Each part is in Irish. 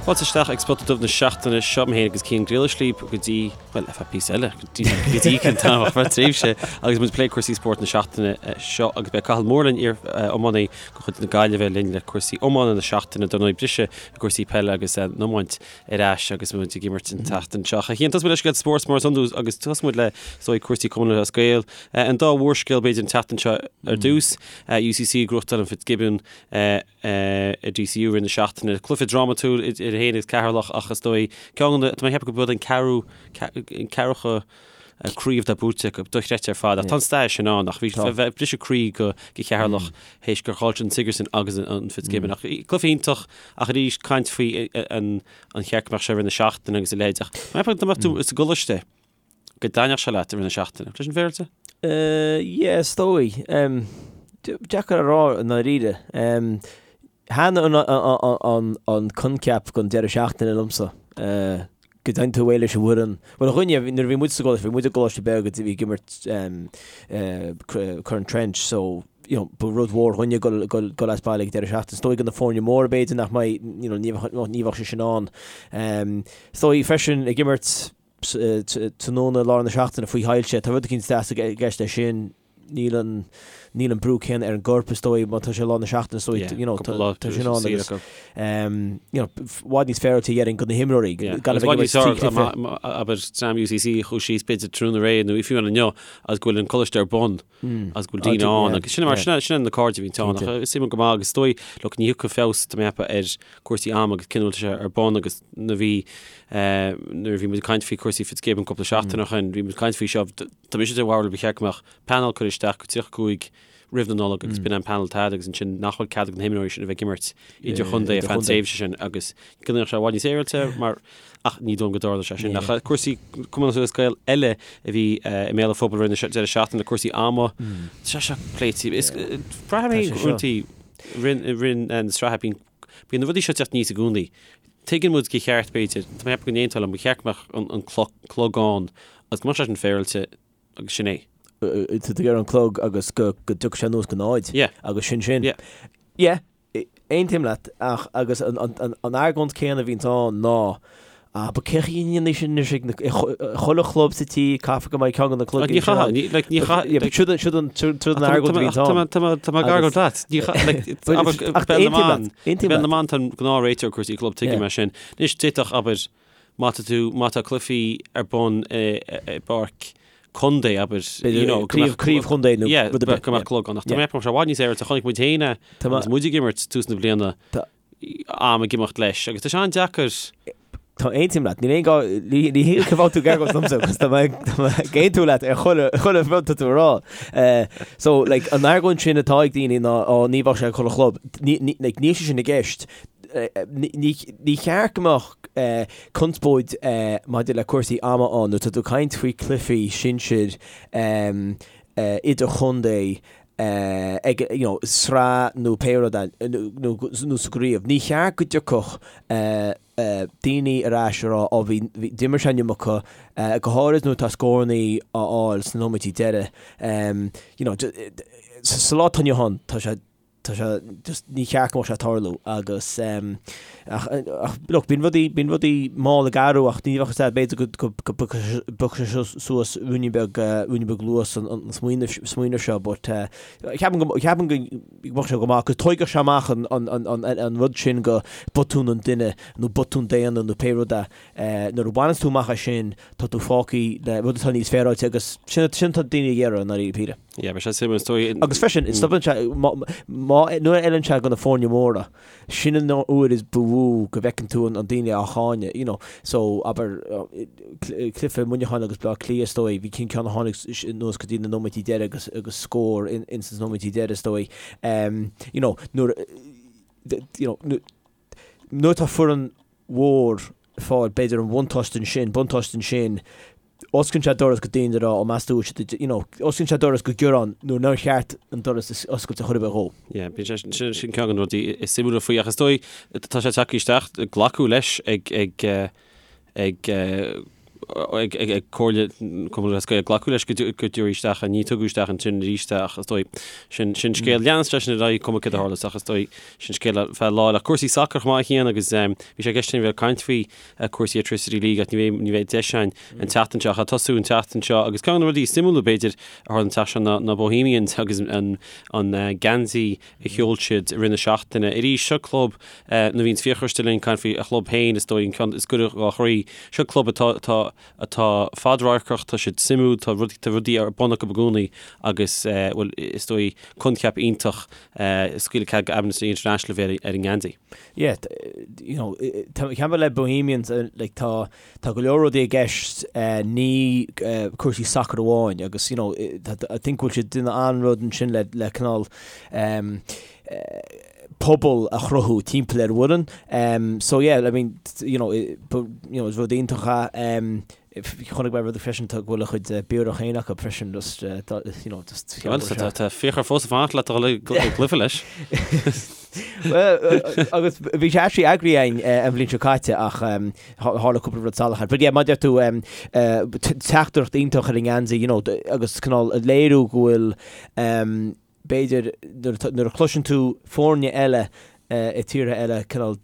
Fáilte isteach ag Spota Dubh na seachtaine seo, mé féin agus Cian Griallais libh go dtí, bhuel, ar feadh píosa eile, go dtí go dtí ceann tamall, ar feadh tréimhse, agus muid ag plé cúrsaí spóirt na seachtaine seo agus beidh Cathal Moore linn, iar-iománaí de chuid na Gaillimhe linn le cúrsaí iomána na seachtaine, dar ndóigh briseadh i gcúrsaí peile agus an iomáint ar ais agus muid ag imirt an tseachtain seo. A Chian, tosóidh muid le scéalta spóirt mar is iondúil agus tosóidh muid le, is dóigh, cúrsaí Cumann Lúthchleas Gael. An dá mhórscéal b'fhéidir an tseachtain seo ar dtús, UCC ag gnóthachtáil an Fitzgibbon, i DCU i rith na seachtaine. Cluiche drámatúil idir iad féin agus Ceatharlach ach is dóigh ceann de na, tá mé ag ceapadh go b'eod an ceathrú, an ceathracha craobh atá buaite acu, dochreidte ar fad. Ach tá an stair sin ann ach bhí bheith briseadh croí go go Cheatharlach théis gur chaill siad an Sigerson agus an Fitzgibbon. Ach cluiche iontach ach arís caint faoi an an cheart go mbeadh sé i rith na seachtaine agus a leithéid ach má mbeadh tú sa gcoláiste go dtaitneodh sé leat i rith na seachtaine. Leis an bhféilte? Yeah, is dóigh. Deacair a rá i ndáiríre. Thaitin an coincheap den deireadh seachtaine liomsa. Go dtéann tú away leis an bhfoireann. Bhuel, a dhuine, nuair a bhí muid sa gcoláiste, bhí muid i gcoláiste beag a bhí ag imirt Corn Trench, so, you know, ba rud mhór dhúinne dul dul as baile ag deireadh seachtaine. Is dóigh do na foirne móra b'fhéidir nach mbeidh, you know, ní bheadh sé sin ann. Is dóigh freisin ag imirt tráthnóna lár na seachtaine faoi shoilse. Tá rud eicínt deas i gceist leis sin. Níl an, níl an brú céanna ar an gcorp is dóigh má tá sé lár na seachtaine is dóigh, you know, tá tá sin ann agus, you know, i bhfad níos féaráilte déarfainn do na himreoirí gan a bheith ag imirt trí chluiche. Abair dream UCC a chuaigh síos b'fhéidir tráthnóna aréir nó fiú inniu agus go bhfuil an coláiste ar bun agus go bhfuil daoine ann agus sin mar sin sin na cairde a bhíonn ann ach is suimiúil go maith agus is dóigh look ní thiocfaidh feabhas tá mé ag ceapadh ar cúrsaí ama agus cén uair atá sé ar bun agus na bhí nuair a bhí muid ag caint faoi cúrsaí Fitzgibbon cúpla seachtain ó shin, bhí muid ag caint faoi seo, tá mise de bharúil ba cheart go mbeadh panel curtha isteach go 35 roimh na Nollag agus b'in an panel atá agus ansin nach bhfuil cead ag na himreoirí sin a bheith ag imirt idirchontae ar feadh an tréimhse sin agus go mbeadh sé i bhfad níos féaráilte mar ach ní dóigh liom go dtarlóidh sé sin. Ach cúrsaí Cumann Lúthchleas Gael eile a bhí i mbéal an phobail roimh an deireadh seachtaine, cúrsaí ama, tá sé seo pléite. Is braithim é uaireanta rith na sraithe bíonn Bíonn na rudaí seo ag teacht aníos i gcónaí. Tuigeann muid gur cheart, b'fhéidir, tá mé ag ceapadh go n-aontófá liom, ba cheart go mbeadh an clog ann agus go mbeadh sé sin féaráilte agus sin é. Tá tú ag iarraidh an clog agus go dtiocfaidh sé anuas go náid agus sin sin. Yeah. Yeah, aontaím leat ach agus an argóint céanna a bhíonns ann ná Ah, but cé chaoi a ndéanfaidh sin anois ag na, i chuile chlub sa tír, caithfear go mbeidh ceann de na cloig Ní chaithfidh, ní, like, ní chaith, Yeah, but siúd an, siúd an, siúd an argóint a bhíonns ann. Tá mé, tá mé ag argóint leat. Ní chaith, like, abair, Ach Béal na aontaím mBan, leat, aontaím Béal na leat. mBan tá an gnáthréiteoir cúrsaí club, tuigim Yeah. é sin. Anois, d'fhéadfadh, abair, má tá tú, má tá cluichí ar bun i, i bpáirc contae, abair, you know, go Craobh, mbeadh craobh chontae nó Yeah, rud ar bith, go mbeadh yeah. clog ann. Ach tá Yeah. mé ag ceapadh go mbeadh sé i bhfad níos féaráilte, chonaic muid féin é, Tá mé- agus muid ag imirt tús na bliana. Tá- am ag imeacht leis agus tá sé an-deacair. Tá aontaím leat, níl aon gá, ní ní hé go bhfuil tú ag argóint liomsa agus tá mé tá mé ag aontú leat ar chuile chuile rud tá tú a rá. Eh, so like an argóint sin atá ag daoine ná ó ní bheadh sé ag chuile chlub, ní ní like níl sé sin i gceist. Eh, ní ní ní cheart go mbeadh eh conspóid eh maidir le cúrsaí ama ann nuair atá tú ag caint faoi cluichí sinsir em eh idirchontae ag you know sraith nó pé rud é nó nó sa gcraobh. Ní cheart go dtiocfadh daoine ar ais a rá ó bhí bhí d'imir sé an iomarca, go háirid nuair atá scórannaí á fháil sna nóiméidí deiridh. You know sa lá atá inniu ann tá sé tá sé just ní cheart go mbeadh sé ag tarlú agus ach ach look bíonn rudaí bíonn rudaí mall ag athrú ach ní bheadh a fhios agat b'fhéidir go go go bpiocfaidh sé suas ruainnín beag ruainnín beag luas an an smaoineamh smaoineamh seo but ceapaim go ceapaim go mbeadh sé go maith go dtóigfeadh sé amach an an an an an rud sin go botún an duine nó botún daonna nó pé rud é nuair a bhaineanns tú amach é sin tá tú fágtha le rud atá níos féaráilte agus sin sin atá daoine ag iarraidh i ndáiríre píre. Yeah, beidh sé suimiúil is dóigh. Agus freisin, stopann sé, má, má, nuair a fheileann sé do na foirne móra, sin an uair is ba mhó go bhfeiceann tú an, an daoine á cháineadh, you know. So, abair, cluiche Muineacháin agus Bleá Cliath, is dóigh, bhí cinn ceann a tháinig anuas go dtí na nóiméidí deiridh agus, agus scór in, ins na nóiméidí deiridh, is dóigh. Um, you know, nuair, you know, nuair atá foireann mhór ag fáil, b'fhéidir, an bhuntáiste ansin, buntáiste ansin, osclaíonn sé doras go daoine a rá, ó meas tú, you know, osclaíonn sé doras go gearán nuair nár cheart an doras a oscailt ar chor ar bith dhó. Yeah, bíonn sé, sin, sin ceann de na rudaí is suimiúla faoi, ach is dóigh, tá sé tagtha isteach, glacadh leis ag, ag, ag. ag Comhairle Cumann Lúthchleas Gael glacadh leis go dtabharfaí isteach é. Ní tugadh isteach ansin arís é ach is dóigh sin sin scéal. Leanann sé sin ar aghaidh cuma céard a tharlas ach is dóigh sin scéal ar feadh lá eile. Cúrsaí sacair chomh maith a Chian agus bhí sé i gceist againn bheith ag caint faoi cúrsaí Airtricity League ach ní bheidh ní bheidh deis againn an tseachtain seo ach ag tosú an tseachtain seo agus ceann de na rudaí is suimiúla b'fhéidir a tharla an tseachtain seo ná ná Bohemians agus an an geansaí a sheol siad i rith na seachtaine. Arís, seo club, nuair a bhíonns Fiachra istigh linn ag caint faoi a chlub féin, is dóigh an ceann is gaire dhá chroí. Seo club atá, atá, atá fadradharcach, tá siad suimiúil, tá rudaí, tá rudaí ar bun acu i gcónaí agus, bhuel, is dóigh coincheap iontach scaoileadh cead go Amnesty International a bheith ar an ngeansaí. Yeah, you know, ceann le Bohemians, like, tá, Tá go leor rudaí i gceist, ní cúrsaí sacair amháin agus you know I think go bhfuil siad ag déanamh an-rud ansin le le cineál pobal a chruthú timpeall ar an bhfoireann. So yeah, I mean you know you know is rud iontach é. Chonaic mé rud freisin tá go bhfuil a chuid biorach féin acu freisin just you know just Well tá Fiachra fós ag fanacht leat a dhul ag cluiche leis. Well agus bhí sé actually eagraithe againn an bhliain seo caite ach Tharla cúpla rud salach air. But yeah, mar a deir tú, teachtaireacht iontach ar an ngeansaí, you know, agus cineál ag léiriú go bhfuil, b'fhéidir, nuair a chloiseann tú foirne eile i tíortha eile cineál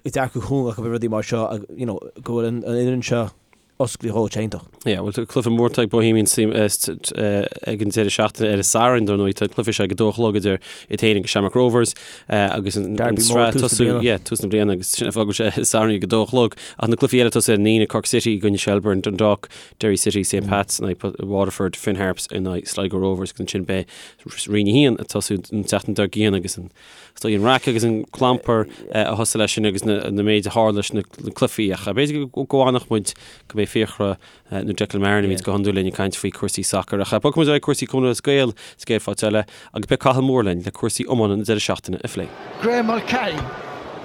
dearcadh cúng acu ar rudaí mar seo, you know, go bhfuil an fhoireann seo oscailte dhó, tá iontach. Yeah, bhuel, tá cluiche mór ag Bohemians ag an deireadh seachtaine ar an Satharn, dar ndóigh, tá an cluiche seo ag a dó a chlog idir iad féin agus Shamrock Rovers agus an Derby mór tús na bliana. Yeah, tús na bliana agus sin an fáth go bhfuil sé Satharn ag a dó a chlog. Ach na cluichí eile ag tosú ar an Aoine, Cork City i gcoinne Shelbourne, Dundalk, Derry City, St Pat's in aghaidh Waterford, Finn Harps in aghaidh Sligo Rovers agus ansin beidh Roinn 1 ag tosú an tseachtain dár gcionn agus an Is dóigh an raic agus an clampar a thosaigh leis sin agus na méid a tharla leis na cluichí ach b'fhéidir go bhfanfadh muid go mbeidh Fiachra nó Declan Marron a bhíonns go hiondúil linn ag caint faoi cúrsaí sacair. Ach bogfaidh muid ar aghaidh cúrsaí Cumann Lúthchleas Gael sa gcéad pháirt eile agus beidh Cathal Moore linn le cúrsaí iomána na deireadh seachtaine a phlé. Graham Mulcahy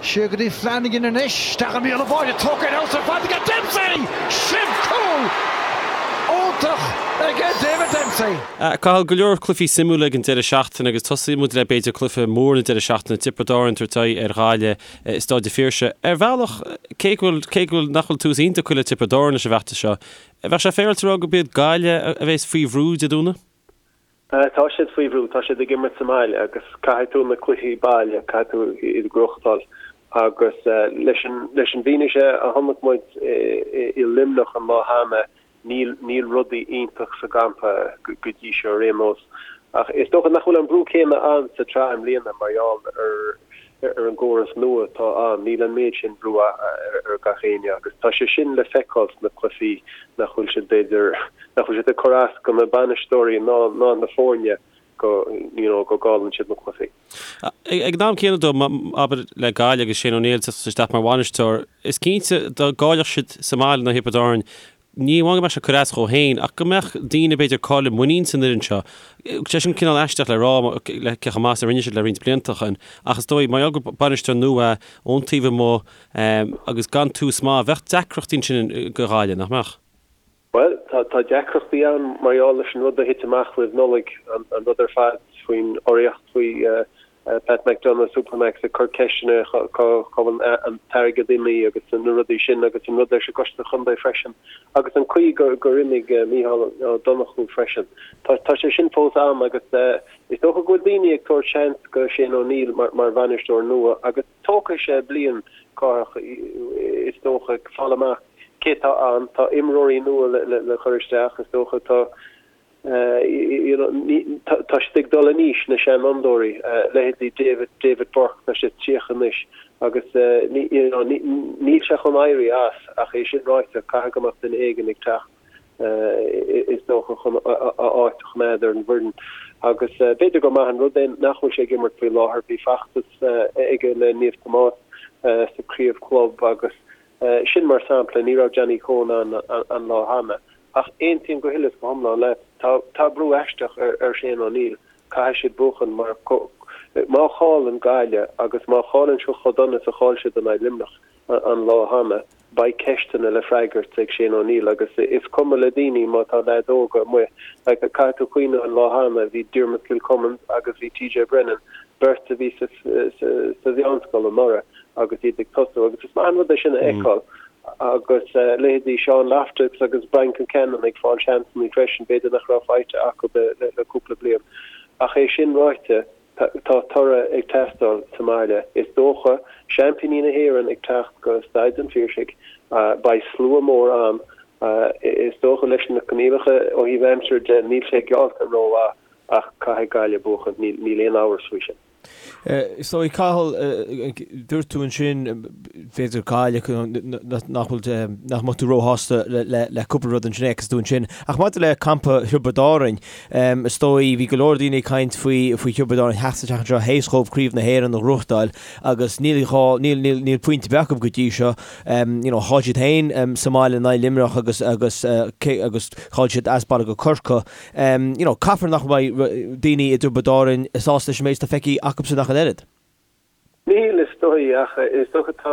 siar go dtí Flanagan anois, isteach i mbéal an bháide, tógtha ar fheabhas ar fad aige Dempsey! Sin cúl iontach aige David Dempsey! Cathal, go leor cluichí suimiúla ag an deireadh seachtaine agus tosóidh muid le b'fhéidir cluiche mór na deireadh seachtaine, Tiobraid Árann ag tabhairt aghaidh ar Ghaillimh i Staid an Phiarsaigh. Ar bhealach, cé go bhfuil, cé go bhfuil, nach bhfuil tús iontach curtha le Tiobraid Árann leis an bhfeachtas seo, bheadh sé féaráilte a rá gurb iad Gaillimh a bheas faoi bhrú Dé Domhnaigh? Tá siad faoi bhrú, tá siad ag imirt sa mbaile agus caithfidh tú na cluichí baile, caithfidh tú iad a ghnóthachtáil. Agus leis an, leis an bhfianaise a chonaic muid i Luimneach an lá cheana, níl, níl rudaí iontach sa gcampa go dtí seo ar aon nós. Ach is dócha nach bhfuil an brú céanna ann sa tsraith i mbliana mar gheall ar, ar an gcóras nua atá ann, níl an méid sin brú ar gach éinne agus tá sé sin le feiceáil sna cluichí nach bhfuil siad b'fhéidir, nach bhfuil siad ag cur as go na bainisteoirí ná ná na foirne go you know go gcailleann siad na cluichí. Ag an am céanna dó, abair le Gaillimh agus Shane O'Neill ag teacht isteach mar bhainisteoir, is cinnte dá gcaillfeadh siad sa mbaile in aghaidh Thiobraid Árann, Ní amháin go mbeadh sé ag cur as dhó féin, ach go mbeadh daoine b'fhéidir ag cailleadh muinín san fhoireann seo. Sé sin cineál aisteach le rá le cé chomh maith is a rinne siad le roinnt blianta ó shin, ach is dóigh, mar gheall gur bainisteoir nua é, ón taobh amuigh, agus gan tús maith, bheadh deacrachtaí ansin go Ghaillimh, nach mbeadh? Bhuel, tá deacrachtaí ann mar gheall leis an rud a thit amach roimh Nollaig, an rud ar fad faoin urraíocht, faoi Pat McDonagh, Supermacs ag cur ceisteanna cá bhfuil an t-airgead imithe agus na rudaí sin agus an rud leis an gcoiste chontae freisin agus an chaoi gur imigh Mícheál Ó Donnchú freisin. Tá sé sin fós ann agus is dócha go bhfuil daoine ag tabhairt seans go Shane O'Neill mar bhainisteoir nua agus tógfaidh sé bliain Cárthach is dócha fáil amach cé tá ann. Tá imreoirí nua le cur isteach is dócha tá Tá siad ag dul in aois, na seanfhondúirí, leithéidí David, David Burke, tá sé 30 anois agus níl sé chun éirí as ach é sin ráite, caithfidh go mbeadh duine éigin ag teacht is dócha chun a áit a choimeád ar an bhfoireann. Agus b'fhéidir gur maith an rud é nach bhfuil sé ag imirt faoi láthair, bhí feachtas aige le Naomh Tomás sa craobh club agus Sin mar sampla, ní raibh Johnny Coen ann an lá cheana. Ach aontaím go huile is go hiomlán leat, tá tá brú aisteach ar Shane O'Neill, caithfidh siad buachan mar má chailleann Gaillimh agus má chailleann siad chomh dona is a chaill siad in aghaidh Luimneach an lá cheana, beidh ceisteanna le freagairt ag Shane O'Neill agus is cuma le daoine má tá leaids óga amuigh. Like, caithfidh tú cuimhneamh an lá cheana, bhí Diarmuid Kilcummins agus bhí TJ Brennan, beirt a bhí sa sa mheánscoil anuraidh agus iad ag tosú agus is maith an rud é sin a fheiceáil. Agus leithéidí Sean Loftus agus Brian Concannon ag fáil seansanna freisin, b'fhéidir nach raibh faighte acu le cúpla bliain. Ach é sin ráite, tá toradh ag teastáil sa mbaile. Is dócha, seaimpíní na hÉireann ag teacht go Staid an Phiarsaigh, beidh slua mór ann. Is dócha leis na coinníollacha ó thaobh aimsire de, níl sé geallta rómhaith ach caithfidh Gaillimh buachan, níl aon amhras faoi sin. Is dóigh, Cathal, dúirt tú ansin, b'fhéidir Gaillimh, nach bhfuil, nach mbeadh tú róshásta le cúpla rud ansin a fheiceas tú ansin. Ach maidir le campa Thiobraid Árainn, is dóigh, bhí go leor daoine ag caint faoi, faoi Thiobraid Árainn theacht isteach anseo théis dhóibh Craobh na hÉireann a ghnóthachtáil agus níl dhá, níl, níl, níl pointe ar bith acu go dtí seo. You know, chaill siad féin sa mbaile in aghaidh Luimneach agus, agus, agus chaill siad as baile go Corcaigh. You know, caithfear nach mbeidh daoine i dTiobraid Árainn sásta leis an méid atá feicthe acubsan ach an oiread. Níl, is dóigh, ach is dócha tá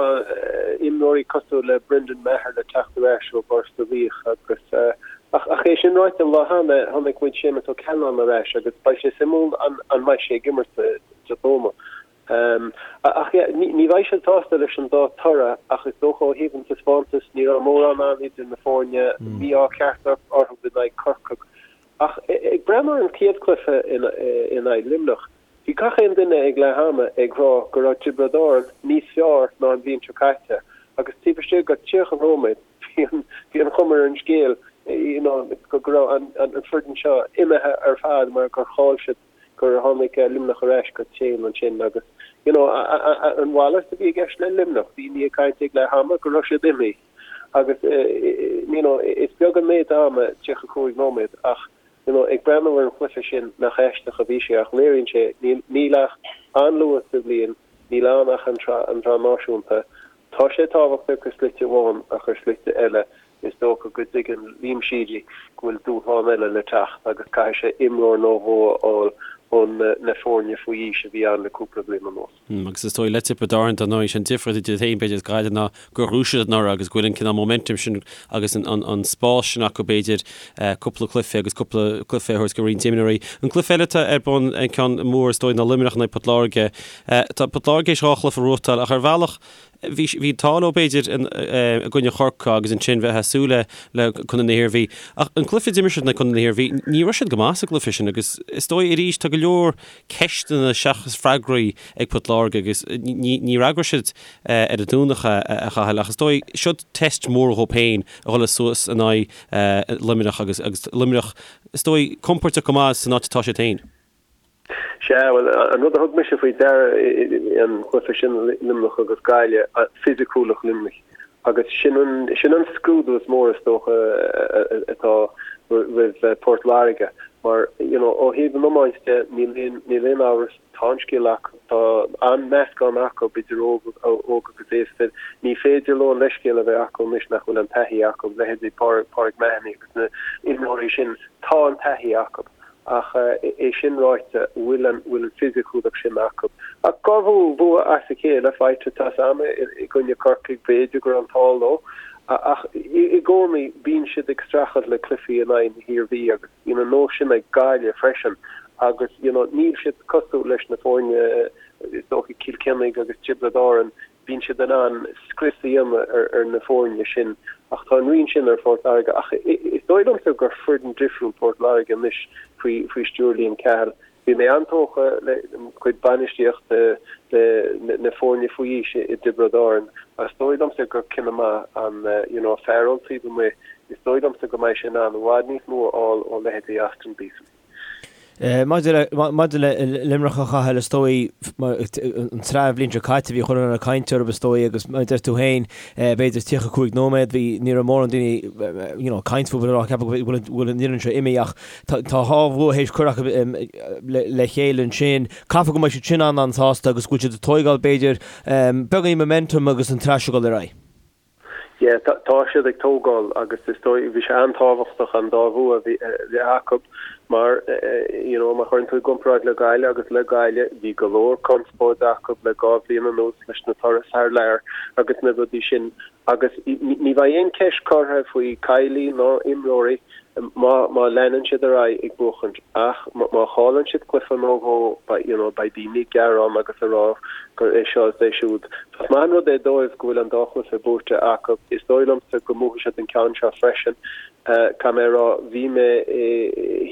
imreoirí cosúil le Brendan Maher le teacht ar ais ó Ghort a' Mhíoch agus ach ach é sin ráite an lá cheana chonaic muid Séamus Ó Ceannabháin ar ais agus beidh sé suimiúil an an mbeidh sé ag imirt Dé Domhnaigh. Ach yeah, ní bheidh siad sásta leis an dá toradh ach is dócha ó thaobh an taispeántas ní raibh mórán ann idir na foirne, mí-ádh ceart orthu in aghaidh Corcaigh. Ach ag breathnú ar an chéad chluiche in aghaidh Luimneach, bhí gach aon duine ag leath ama ag rá go raibh Tiobraid Árann níos fearr ná an bhliain seo caite agus taobh istigh de 30 nóiméad bhí an chuma ar an scéal you know go raibh an foireann seo imithe ar fad mar gur chaill siad gur tháinig Luimneach ar ais go tréan ansin agus you know an mhalairt a bhí i gceist le Luimneach, daoine ag caint ag leath ama go raibh siad imithe agus you know is beag an méid ama 35 nóiméad ach you know ag breathnú ar an chluiche sin nach aisteach a bhí sé ach léiríonn sé níl níl ach an-luath sa bhliain, níl ann ach an tSraith Náisiúnta. Tá sé tábhachtach ar shlite amháin ach ar shlite eile Is dócha go dtuigeann Liam Sheedy go bhfuil dúshlán eile le teacht agus caithfidh sé imreoir nó dhó a fháil ó na foirne faoi aois a bhí ann le cúpla bliain anuas. Agus is dóigh le Tiobraid Árann, dar ndóigh, sé an difríocht idir iad féin b'fhéidir is Gaillimh ná gur ghnóthaigh siad anuraidh agus go bhfuil an cineál momentum sin agus an spás sin acu b'fhéidir cúpla cluiche agus cúpla cluiche a thabhairt go roinnt imreoirí. An cluiche eile atá ar bun, an ceann mór is dóigh ná Luimneach in aghaidh Port Láirge. Tá Port Láirge théis dhá chluiche a ghnóthachtáil ach ar bhealach Bhí an t-ádh leo b'fhéidir i gcoinne Chorcaí agus ansin bheith ag súil le le Contae na hIarmhí. Ach an cluiche a d'imir siad in aghaidh Contae na hIarmhí, ní raibh siad go maith sa gcluiche sin agus is dóigh arís tá go leor ceisteanna seachas freagraí ag Port Láirge agus ní fhreagróidh siad ar an Domhnach a Chathail ach is dóigh seo test mór dhóibh féin a dhul suas in aghaidh Luimneach agus agus Luimneach is dóigh compordach go maith san áit atá siad féin. Sea, bhuel, an rud a thug mise faoi deara an cluiche sin, Luimneach agus Gaillimh, fisiciúlacht Luimnigh. Agus sin an, sin an scrúdú is mór is dócha atá roimh Port Láirge. Mar, you know, ó thaobh an iomáint de, níl aon, níl aon amhras, tá an scil acu, tá an-meascán acu idir óg, óg agus aosta. Ní féidir leo an leithscéal a bheith acu anois nach bhfuil an taithí acu, leithéidí Pádraig Mahony agus na imreoirí sin, tá an taithí acu. Ach é sin ráite, bhfuil an bhfuil an fisiciúlacht sin acu? Ach dhá bhua as a chéile faighte tá a fhios a'm i gcoinne Corcaigh, b'fhéidir go raibh an t-ádh leo. Ach i gcónaí bíonn siad ag streachailt le cluichí in aghaidh na hIarmhí agus bíonn an nós sin ag Gaillimh freisin agus you know níl siad cosúil leis na foirne is dócha Cill Chainnigh agus Tiobraid Árann Bíonn siad in ann scrios a dhéanamh ar na foirne sin ach tá an rian sin ar Phort Láirge. Ach is dóigh liomsa gur foireann difriúil Port Láirge anois faoi stiúir Liam Cahill. Bhí mé an-tógtha le cuid bainistíochta na foirne faoi aois i dTiobraid Árann ach is dóigh liomsa gur cinneadh maith an you know fear ón taobh amuigh, is dóigh liomsa go mbeidh sé in ann i bhfad níos mó a fháil ó leithéidí Austin Beeson. Maidir le Luimneach a Chathail, is dóigh, an tsraith an bhliain seo caite, bhí chuile dhuine ag caint orthu, is dóigh, agus mar a deir tú féin, b'fhéidir 35 nóiméad, bhí, ní raibh mórán daoine, you know, ag caint fúthu, ag ceapadh go bhfuil an fhoireann seo imithe ach tá dhá bhua théis cur acu le chéile ansin. Caithfidh go mbeidh siad sin an-an-sásta agus go bhfuil siad ag tóigeáil, b'fhéidir, beagáinín momentum agus an tsraith seo ag dul ar aghaidh. Yeah, tá siad ag tógáil agus is dóigh, bhí sé an-tábhachtach an dá bhua a bheith acu mar, you know, má chuireann tú i gcomparáid le Gaillimh agus le Gaillimh, bhí go leor conspóid acu le dhá bhliain anuas leis na turais thar lear agus na rudaí sin. Agus ní bheidh aon cheist curtha faoi Kiely ná imreoirí má má leanann siad ar aghaidh ag buachaint ach má chailleann siad cluiche nó dhó beidh you know beidh daoine ag gearán agus ag rá gur é seo is é siúd. Is maith an rud é dóibh go bhfuil an dá chluiche buaite acu. Is dóigh liomsa go mbuafaidh siad an ceann seo freisin. Caithfidh mé a rá bhí mé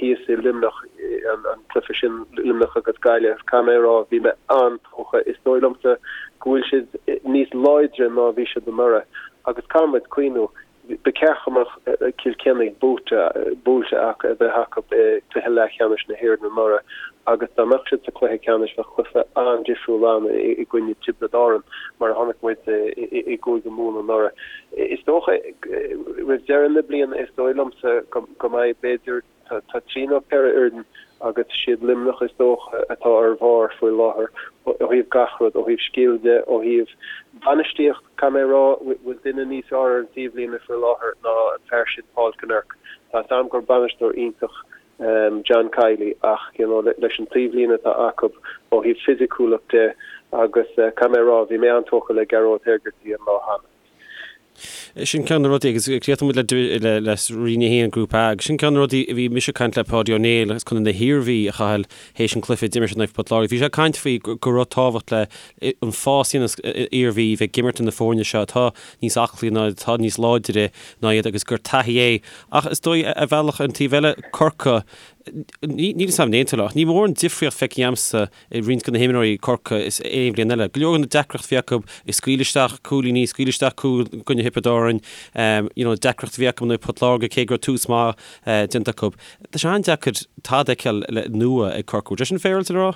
thíos i Luimneach an cluiche sin Luimneach agus Gaillimh. Caithfidh mé a rá bhí mé an-tógtha. Is dóigh liomsa go bhfuil siad níos láidre ná a bhí siad anuraidh agus caithfidh muid cuimhniú, ba cheart go mbeadh Cill Chainnigh buaite, buailte acu, a bheith acu i gcluiche leathcheannais na hÉireann anuraidh agus dá mbeadh siad sa chluiche ceannais bheadh cluiche an-difriúil ann i gcoinne Tiobraid Árann mar a chonaic muid i gCúige Mumhan anuraidh. Is dócha roimh deireadh na bliana is dóigh liomsa go mbeidh b'fhéidir Tá trí nó ceithre fhoireann agus siad Luimneach is dócha atá ar bharr faoi láthair ó thaobh gach rud, ó thaobh scil de, ó thaobh bainistíocht. Caithfidh mé a rá, bhfuil duine níos fearr ar an taobhlíne faoi láthair ná an fear sin Paul Kinnerk. Tá 'fhios a'm gur bainisteoir iontach John Kiely ach you know leis an taobhlíne atá acu ó thaobh fisiciúlacht de agus caithfidh mé a rá, bhí mé an-tógtha le Gearóid Hegarty an lá cheana. Sin ceann de na rudaí, agus críochnóidh muid le le Roinn 1, Grúpa A, agus sin ceann de na rudaí a bhí mise ag caint le Páidí Ó Néill as Contae na hIarmhí, a Chathail, théis an cluiche a d'imir siad in aghaidh Port Láirge. Bhí sé ag caint faoi go raibh tábhacht le an fás a dhéanann Iarmhí bheith ag imirt na foirne seo atá níos aclaí ná atá níos láidre ná iad agus gur taithí é. Ach is dóigh ar bhealach an taobh eile, Corcaigh, níl 'fhios a'm an aontóidh ach ní mór an difríocht feicthe a'msa i roinnt de na himreoirí Corcaigh is aon bhliain eile. Go leor de na deacrachtaí a bhí acu ag scaoileadh isteach cúilíní, scaoileadh isteach cúl i gcoinne Thiobraid Árann, you know, deacracht a bhí acu in aghaidh Port Láirge cé go raibh tús maith déanta acu. Tá sé an-deacair tada a fheiceáil le nua ag Corcaigh. Bhfuil sé sin féaráilte le rá?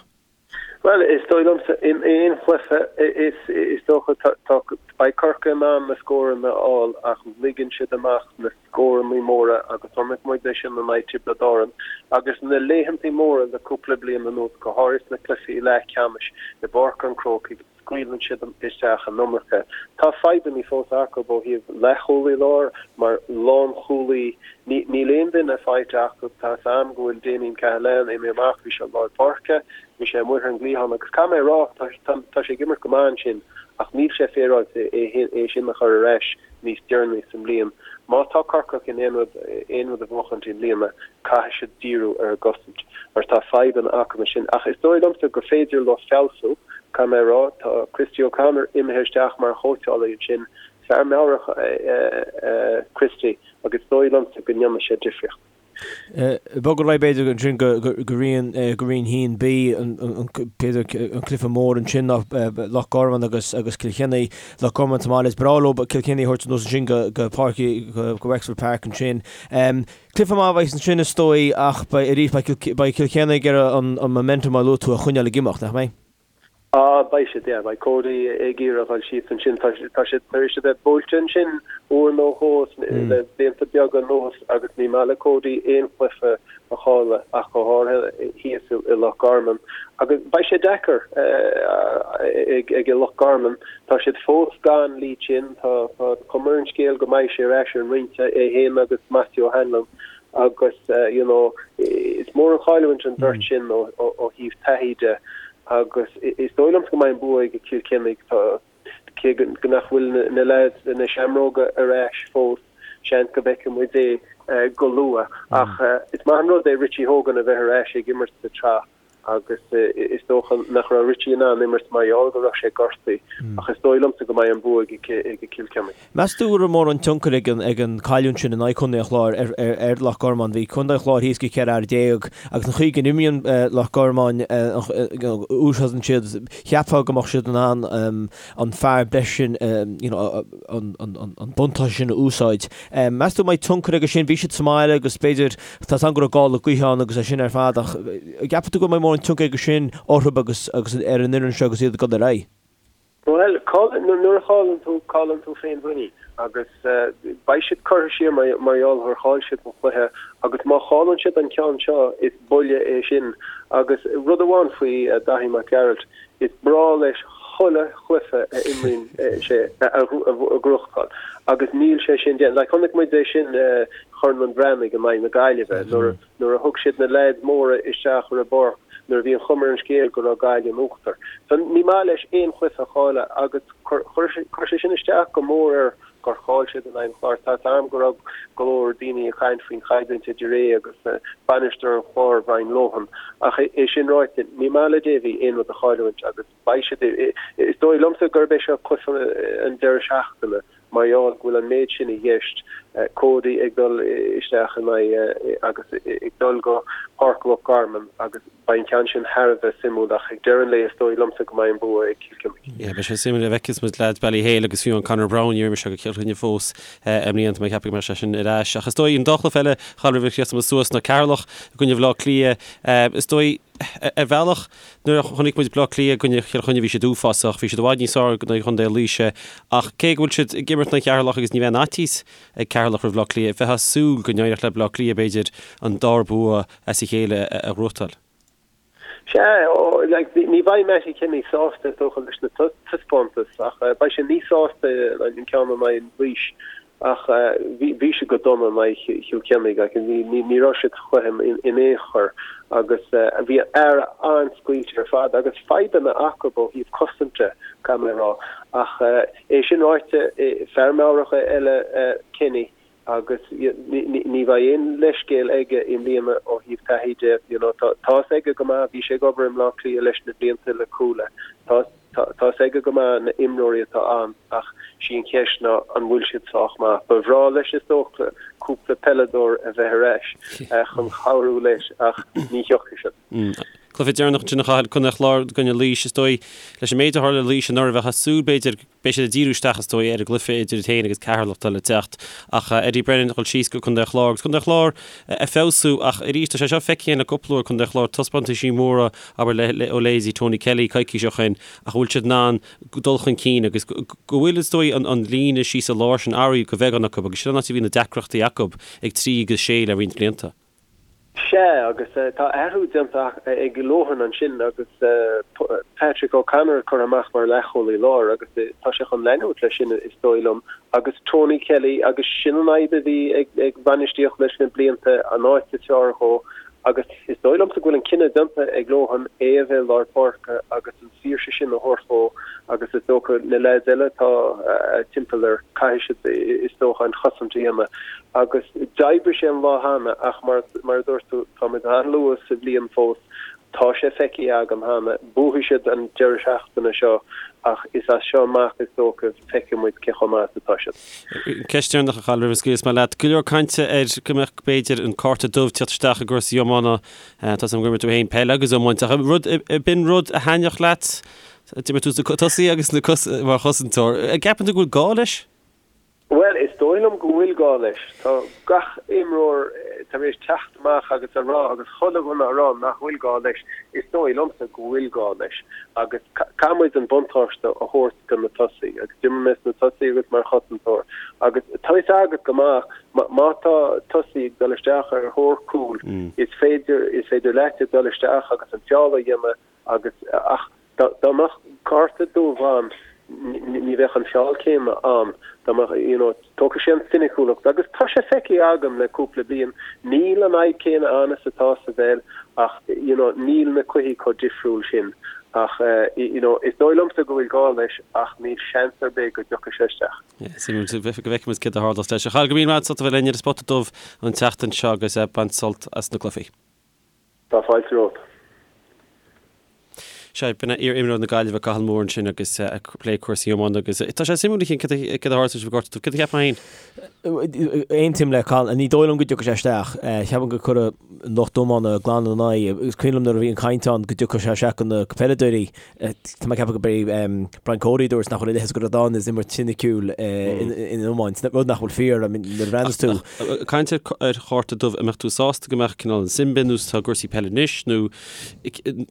Bhuel, is dóigh liomsa, in aon chluiche, is is dócha, tá, beidh Corcaigh in ann na scóranna a fháil ach ligeann siad amach na scóranna móra agus chonaic muid é sin in aghaidh Tiobraid Árann agus na laethantaí móra le cúpla bliain anuas, go háirithe sna cluichí leathcheannais i bPáirc an Chrócaigh, scaoileann siad isteach an iomarca. Tá fadhbanna fós acu ó thaobh leathchúlaí láir mar lánchúlaí. Níl aon duine faighte acu. Tá 'fhios a'm go bhfuil Damien Cahalane imithe amach, bhí sé lár páirce, bhí sé amuigh ar an gcliathán agus caithfidh mé a rá, tá sé ag imirt go maith ansin ach níl sé féaráilte é sin a chur ar ais níos deireanaí sa mbliain. Má tá Corcaigh chun aon rud aon rud a bhuachaint i mbliana, caithfidh siad díriú ar an gcosaint mar tá fadhbanna acu ansin. Ach is dóigh liomsa gur féidir leo feabhsú, caithfidh mé a rá. Tá Christy O'Connor imithe isteach mar chóitseálaí ansin. Fear meabhrach é Christy agus is dóigh liomsa go ndéanfaidh sé difríocht. Bogadh ar aghaidh b'fhéidir ansin go Roinn 1B, b'fhéidir an cluiche mór ansin ná Loch Garman agus agus Cill Chainnigh. Loch Garman sa mbaile, is breá leo Cill Chainnigh a thabhairt anuas ansin go Páirc, go Wexford Park ansin. Cluiche maith a bheas ansin is dóigh ach beidh arís beidh Cill Chainnigh ag iarraidh an momentum mar a luaigh tú a choinneáil ag imeacht, nach mbeidh? Ah, beidh siad, yeah, beidh Cody ag iarraidh a dhul síos ansin. Tá tá siad tar éis a bheith buailte ansin uair nó dhó le blianta beaga anuas agus ní maith le Cody aon chluiche a chailleadh ach go háirithe thíos i Loch Garman. Agus beidh sé deacair ag ag Loch Garman. Tá siad fós gan Lee Chin, tá tá cuma ar an scéal go mbeidh sé ar ais ar an mbinse, é féin agus Matthew O'Hanlon agus you know is mór an chailliúint an bheirt sin ó ó thaobh taithí de agus is dóigh liomsa go mbeidh an bua ag Cill Chainnigh tá cé go nach bhfuil na leaids na seamróga ar ais fós seans go bhfeicfidh muid é go luath ach is maith an rud é Richie Hogan a bheith ar ais ag imirt sa tsraith agus is dócha nach raibh Richie in ann imirt mar gheall go raibh sé gortaithe ach is dóigh liomsa go mbeidh an bua ag Cill Chainnigh. Meas tú go raibh mórán tionchair ag an ag an cailliúint sin in aghaidh Chontae an Chláir ar ar ar Loch Garman? Bhí Contae an Chláir thíos go 14 fhear agus an chaoi go n-imríonn Loch Garman úsáideann siad cheapfá go mbeadh siad in ann an fear breise sin you know an an an buntáiste sin a úsáid. Meas tú an mbeidh tionchar aige sin? Bhí siad sa mbaile agus b'fhéidir Tá 's agam go raibh gála gaoithe ann agus é sin ar fad ach an gceapann tú go mbeidh mórán tionchar aige sin orthu agus agus ar an fhoireann seo agus iad ag dul ar aghaidh? Bhuel, nuair a chailleann tú, cailleann tú féinmhuinín agus beidh siad curtha siar mar gheall gur chaill siad an cluiche agus má chailleann siad an ceann seo is buille é sin agus rud amháin faoi Daithí Mac Gearailt, Is breá leis chuile chluiche a imríonn sé a ghnóthachtáil agus níl sé sin déanta. Like chonaic muid é sin Chorn an Bhreathnaigh in aghaidh na Gaillimhe nuair nuair a thug siad na leaids móra isteach ar an bpáirc nuair a bhí an chuma ar an scéal go raibh Gaillimh in uachtar. So ní maith leis aon chluiche a chailleadh agus chuir sé sin isteach go mór air. Gur chaill siad in aghaidh an Chláir. Tá 'fhios a'm go raibh go leor daoine ag caint faoin choimhlint idir é agus bainisteoir an Chláir, Brian Lohan. Ach é sin ráite, ní maith le Davy aon rud a chailliúint agus beidh siad, is dóigh liomsa gurb é seo cluiche an deireadh seachtaine mar gheall go bhfuil an méid sin i gceist, Cody ag dul isteach in aghaidh agus ag dul go Páirc Loch Garman agus Beidh an ceann sin thar a bheith suimiúil ach ag deireadh an lae is dóigh liomsa go mbeidh an bua ag Cill Chainnigh. Yeah, beidh sé suimiúil a bhfeicfeas muid leaids Ballyhale agus fiú an Conor Browne, níor imir sé go Cill Chainnigh fós i mbliana, tá mé ag ceapadh go mbeidh sé sin ar ais. Ach is dóigh an dá chluiche eile a Chathail roimh a chríochnóidh muid suas ná Ceatharlach i gcoinne Bhaile Átha Cliath. Is dóigh, ar bhealach, nuair a chonaic muid Baile Átha Cliath i gcoinne Chill Chainnigh bhí siad uafásach, bhí siad i bhfad níos fearr in aghaidh Chontae Laoise ach cé go bhfuil siad ag imirt in aghaidh Cheatharlach agus ní bheidh aon fhaitíos ag Ceatharlach roimh Bhaile Átha Cliath, bheifeá ag súil go n-éireodh le Baile Átha Cliath b'fhéidir an dara bua as a chéile a ghnóthachtáil. Sea, like, ní bheidh Mattie Kenny sásta is dócha leis na taispeántais ach beidh sé níos sásta an ceann in aghaidh Laois ach bhí bhí siad go dona in aghaidh Chill Chainnigh like, ní ní ní raibh siad sa chluiche in aon chor agus bhí fear an-scaoilte ar fad agus fadhbanna acu ó thaobh cosainte caithfidh mé a rá ach é sin ráite fear meabhrach eile Kenny agus ní bheidh aon leithscéal aige i mbliana ó thaobh taithí de, you know, tá fhios aige go maith, bhí sé ag obair i mBleá Cliath leis na blianta le Cuala, tá tá fhios aige go maith na imreoirí atá ann ach sí an cheist ná an bhfuil siad sách maith. Ba bhreá leis is dócha cúpla peileadóir a bheith ar ais chun cabhrú leis ach ní thiocfaidh siad. Cluiche deireanach ansin a Chathail, Contae an Chláir i gcoinne Laois, is dóigh, leis an méid a tharla le Laois anuraidh bheifeá ag súil b'fhéidir Beidh siad ag díriú isteach, is dóigh, ar an gcluiche idir iad féin agus Ceatharlach atá le teacht. Ach Eddie Brennan ag dul síos go Contae an Chláir agus Contae an Chláir ag feabhsú ach arís tá sé seo feicthe againn le cúpla uair, Contae an Chláir taispeántaisí móra, abair, le ó leithéidí Tony Kelly coicís ó shin ach an bhfuil siad in ann dul chun cinn agus go bhfuil, is dóigh, an líne síos i lár sin athraithe go bheagán acu agus sin an áit a bhí na deacrachtaí acu ag 3 agus 6 le roinnt blianta. Sea, agus tá athrú déanta ag Lohan ansin agus Patrick O'Connor curtha amach mar leathchúlaí láir agus tá sé chun leanúint leis sin is dóigh liom. Agus Tony Kelly, agus sin an fhadhb a bhí ag bainistíocht leis na blianta, an áit is fearr dhó agus is dóigh liomsa go bhfuil an cinneadh déanta ag Lohan é a bheith i lár páirce agus an saoirse sin a thabhairt dhó agus is dócha na leaids eile atá timpeall air, caithfidh siad is dócha an chosaint a dhéanamh. Agus d'oibrigh sé an lá cheana ach mar mar a dúirt tú, táimid an-luath sa bhliain fós, tá sé feicthe agam cheana, buafaidh siad an deireadh seachtaine seo ach is as seo amach is dócha feicfidh muid cé chomh maith is atá siad. Ceist deireanach a Chathail roimh a scaoilfeas mé leat. Go leor cainte ar go mbeadh b'fhéidir an cárta dubh teacht isteach i gcúrsaí iomána. Tá 's agam gur imir tú féin peil agus iomáint ach rud b'in rud a thaitneodh leat? D'imir tú sna tosaí agus sna mar chosantóir. An gceapann tú go bhfuil gá leis? Bhuel, is dóigh liom go bhfuil gá leis. Tá gach imreoir tar éis teacht amach agus a rá, agus chuile dhuine a rá nach bhfuil gá leis. Is dóigh liomsa go bhfuil gá leis agus caithfidh muid an buntáiste a thabhairt do na tosaí. Agus d'imir mé sna tosaí agus mar chosantóir agus tá fhios agat go maith má tá tosaí ag dul isteach ar thóir cúil, is féidir, is féidir leat dul isteach agus an feall a dhéanamh agus ach Dá mbeadh cárta dubh ann ní bheadh an feall céanna ann. Dá mbeadh, you know, tógfaidh sé an soiniciúlacht agus tá sé feicthe agam le cúpla bliain, níl an fhadhb céanna ann is atá sa bpeil ach, you know, níl na cluichí chomh difriúil sin. Ach, you know, is dóigh liomsa go bhfuil gá leis ach níl seans ar bith go dtiocfaidh sé isteach. Suimiúil go bhfeicfidh muid céard a tharlós leis. A Chathail, go raibh míle maith agat as ucht a bheith linn ar an Spota Dubh an tseachtain seo agus bain sult as na cluichí. Tá fáilte romhat. Sea, b'in é iar-imreoir na Gaillimhe Cathal Moore ansin agus ag plé cúrsaí iomána agus tá sé suimiúil a Chian céard a tharlós leis an gcárta dubh. Céard a cheapfá féin? Aontaím le Cathal, ní dóigh liom go dtiocfaidh sé isteach. Ceapaim go cuirfidh lucht iomána glan ina n-aghaidh. Is cuimhin liom nuair a bhí an chaint ann go dtiocfadh sé isteach do na peileadóirí. Tá mé ag ceapadh gurb é Brian Cody a dúirt nach bhfuil a leithéid de rud ann is imirt soiniciúil in iomáint, rud nach bhfuil fíor, I mean, nuair a bhreathnas tú. Caint ar chárta dubh, an mbeadh tú sásta go mbeadh cineál an sin bin nó tá cúrsaí peile anois nó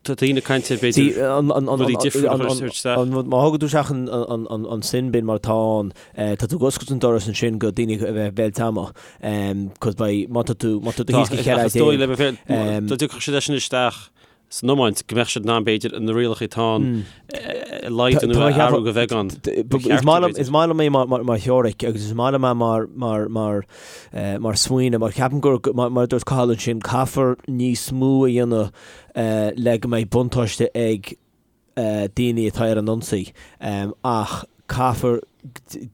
tá daoine ag caint ar b'fhéidir rudaí difriúla a chur isteach. Má thugann tú isteach an sin bin mar atá ann, tá tú ag oscailt an doras ansin go daoine a bheith béal teama, cos beidh, má tá tú, má tá tú thíos go 14. Is dóigh le bheith, dá dtiocfadh siad leis sin isteach, san iomáint, go mbeadh siad in ann, b'fhéidir, na rialacha atá ann a laghdú nó a athrú go bheagán. Is maith liom é mar theoiric agus is maith liom é mar smaoineamh mar ceapaim gur, mar a dúirt Cathal ansin, caithfear níos mó a dhéanamh le go mbeidh buntáiste ag daoine atá ar an ionsaí ach caithfear.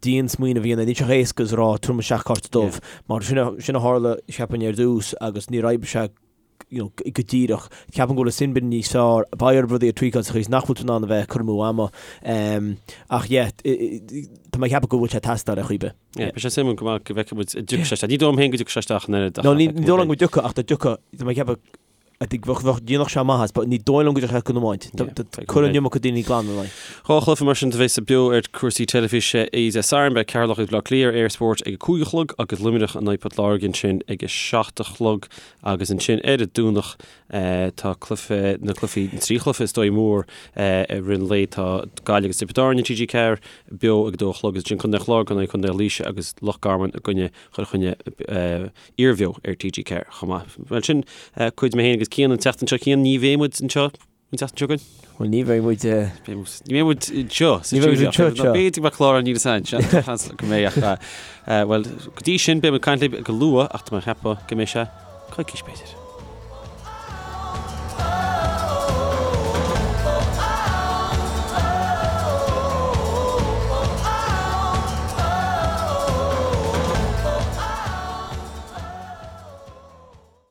dian smaoineamh a dhéanamh, níl sé chomh héasca is a rá tabharfaidh muid isteach cárta dubh, mar sin a tharla, cheapfainn, ar dtús agus níor oibrigh sé you know, go díreach. Ceapaim go bhfuil an sin bin níos fearr, beidh orthu rudaí a tweakáil sa chaoi is nach bhfuil tú in ann a bheith ag cur amú ama. Ach yeah, tá mé ag ceapadh go bhfuil sé ag teastáil ar chaoi ar bith. Yeah, beidh sé suimiúil go maith go bhfeicfidh muid an dtiocfaidh sé isteach. Ní dóigh liom féin go dtiocfaidh sé isteach an oiread ach. No, ní dóigh liom go dtiocfaidh ach dá dtiocfadh, tá mé ag ceapadh I think bheadh, bheadh, dhéanfadh sé maitheas, but ní dóigh liom go dtiocfaidh sé don iomáint. Cuireann an iomarca daoine glan ina aghaidh. 2 chluiche mar sin a bheas beo ar chúrsaí teilifíse Dé Sathairn. Beidh Ceatharlach agus Baile Átha Cliath ar Eir Sport ag a 5 a chlog agus Luimneach in aghaidh Port Láirge ansin ag a 7 a chlog agus ansin ar an Domhnach tá cluiche, na cluichí, na trí chluiche is dóigh mór i rith an lae. Tá Gaillimh agus Tiobraid Árann ar TG4 beo ag a 2 a chlog agus ansin Contae an Chláir in aghaidh Contae Laoise agus Loch Garman i gcoinne Chill Chainnigh. iarbheo ar TG4 chomh maith. Bhuel sin cuid mé féin agus Cian an tseachtain seo. Cian, ní bheidh muid anseo an tseachtain seo chugainn? Bhuel ní bheidh muid. Ní bheidh muid anseo sa Ní bheidh muid anseo anseo. B'fhéidir go mbeadh clár an níl a fhios go mbeidh ach bhuel go dtí sin beidh muid ag caint libh go luath ach tá mé ag ceapadh go mbeidh sé coicís b'fhéidir.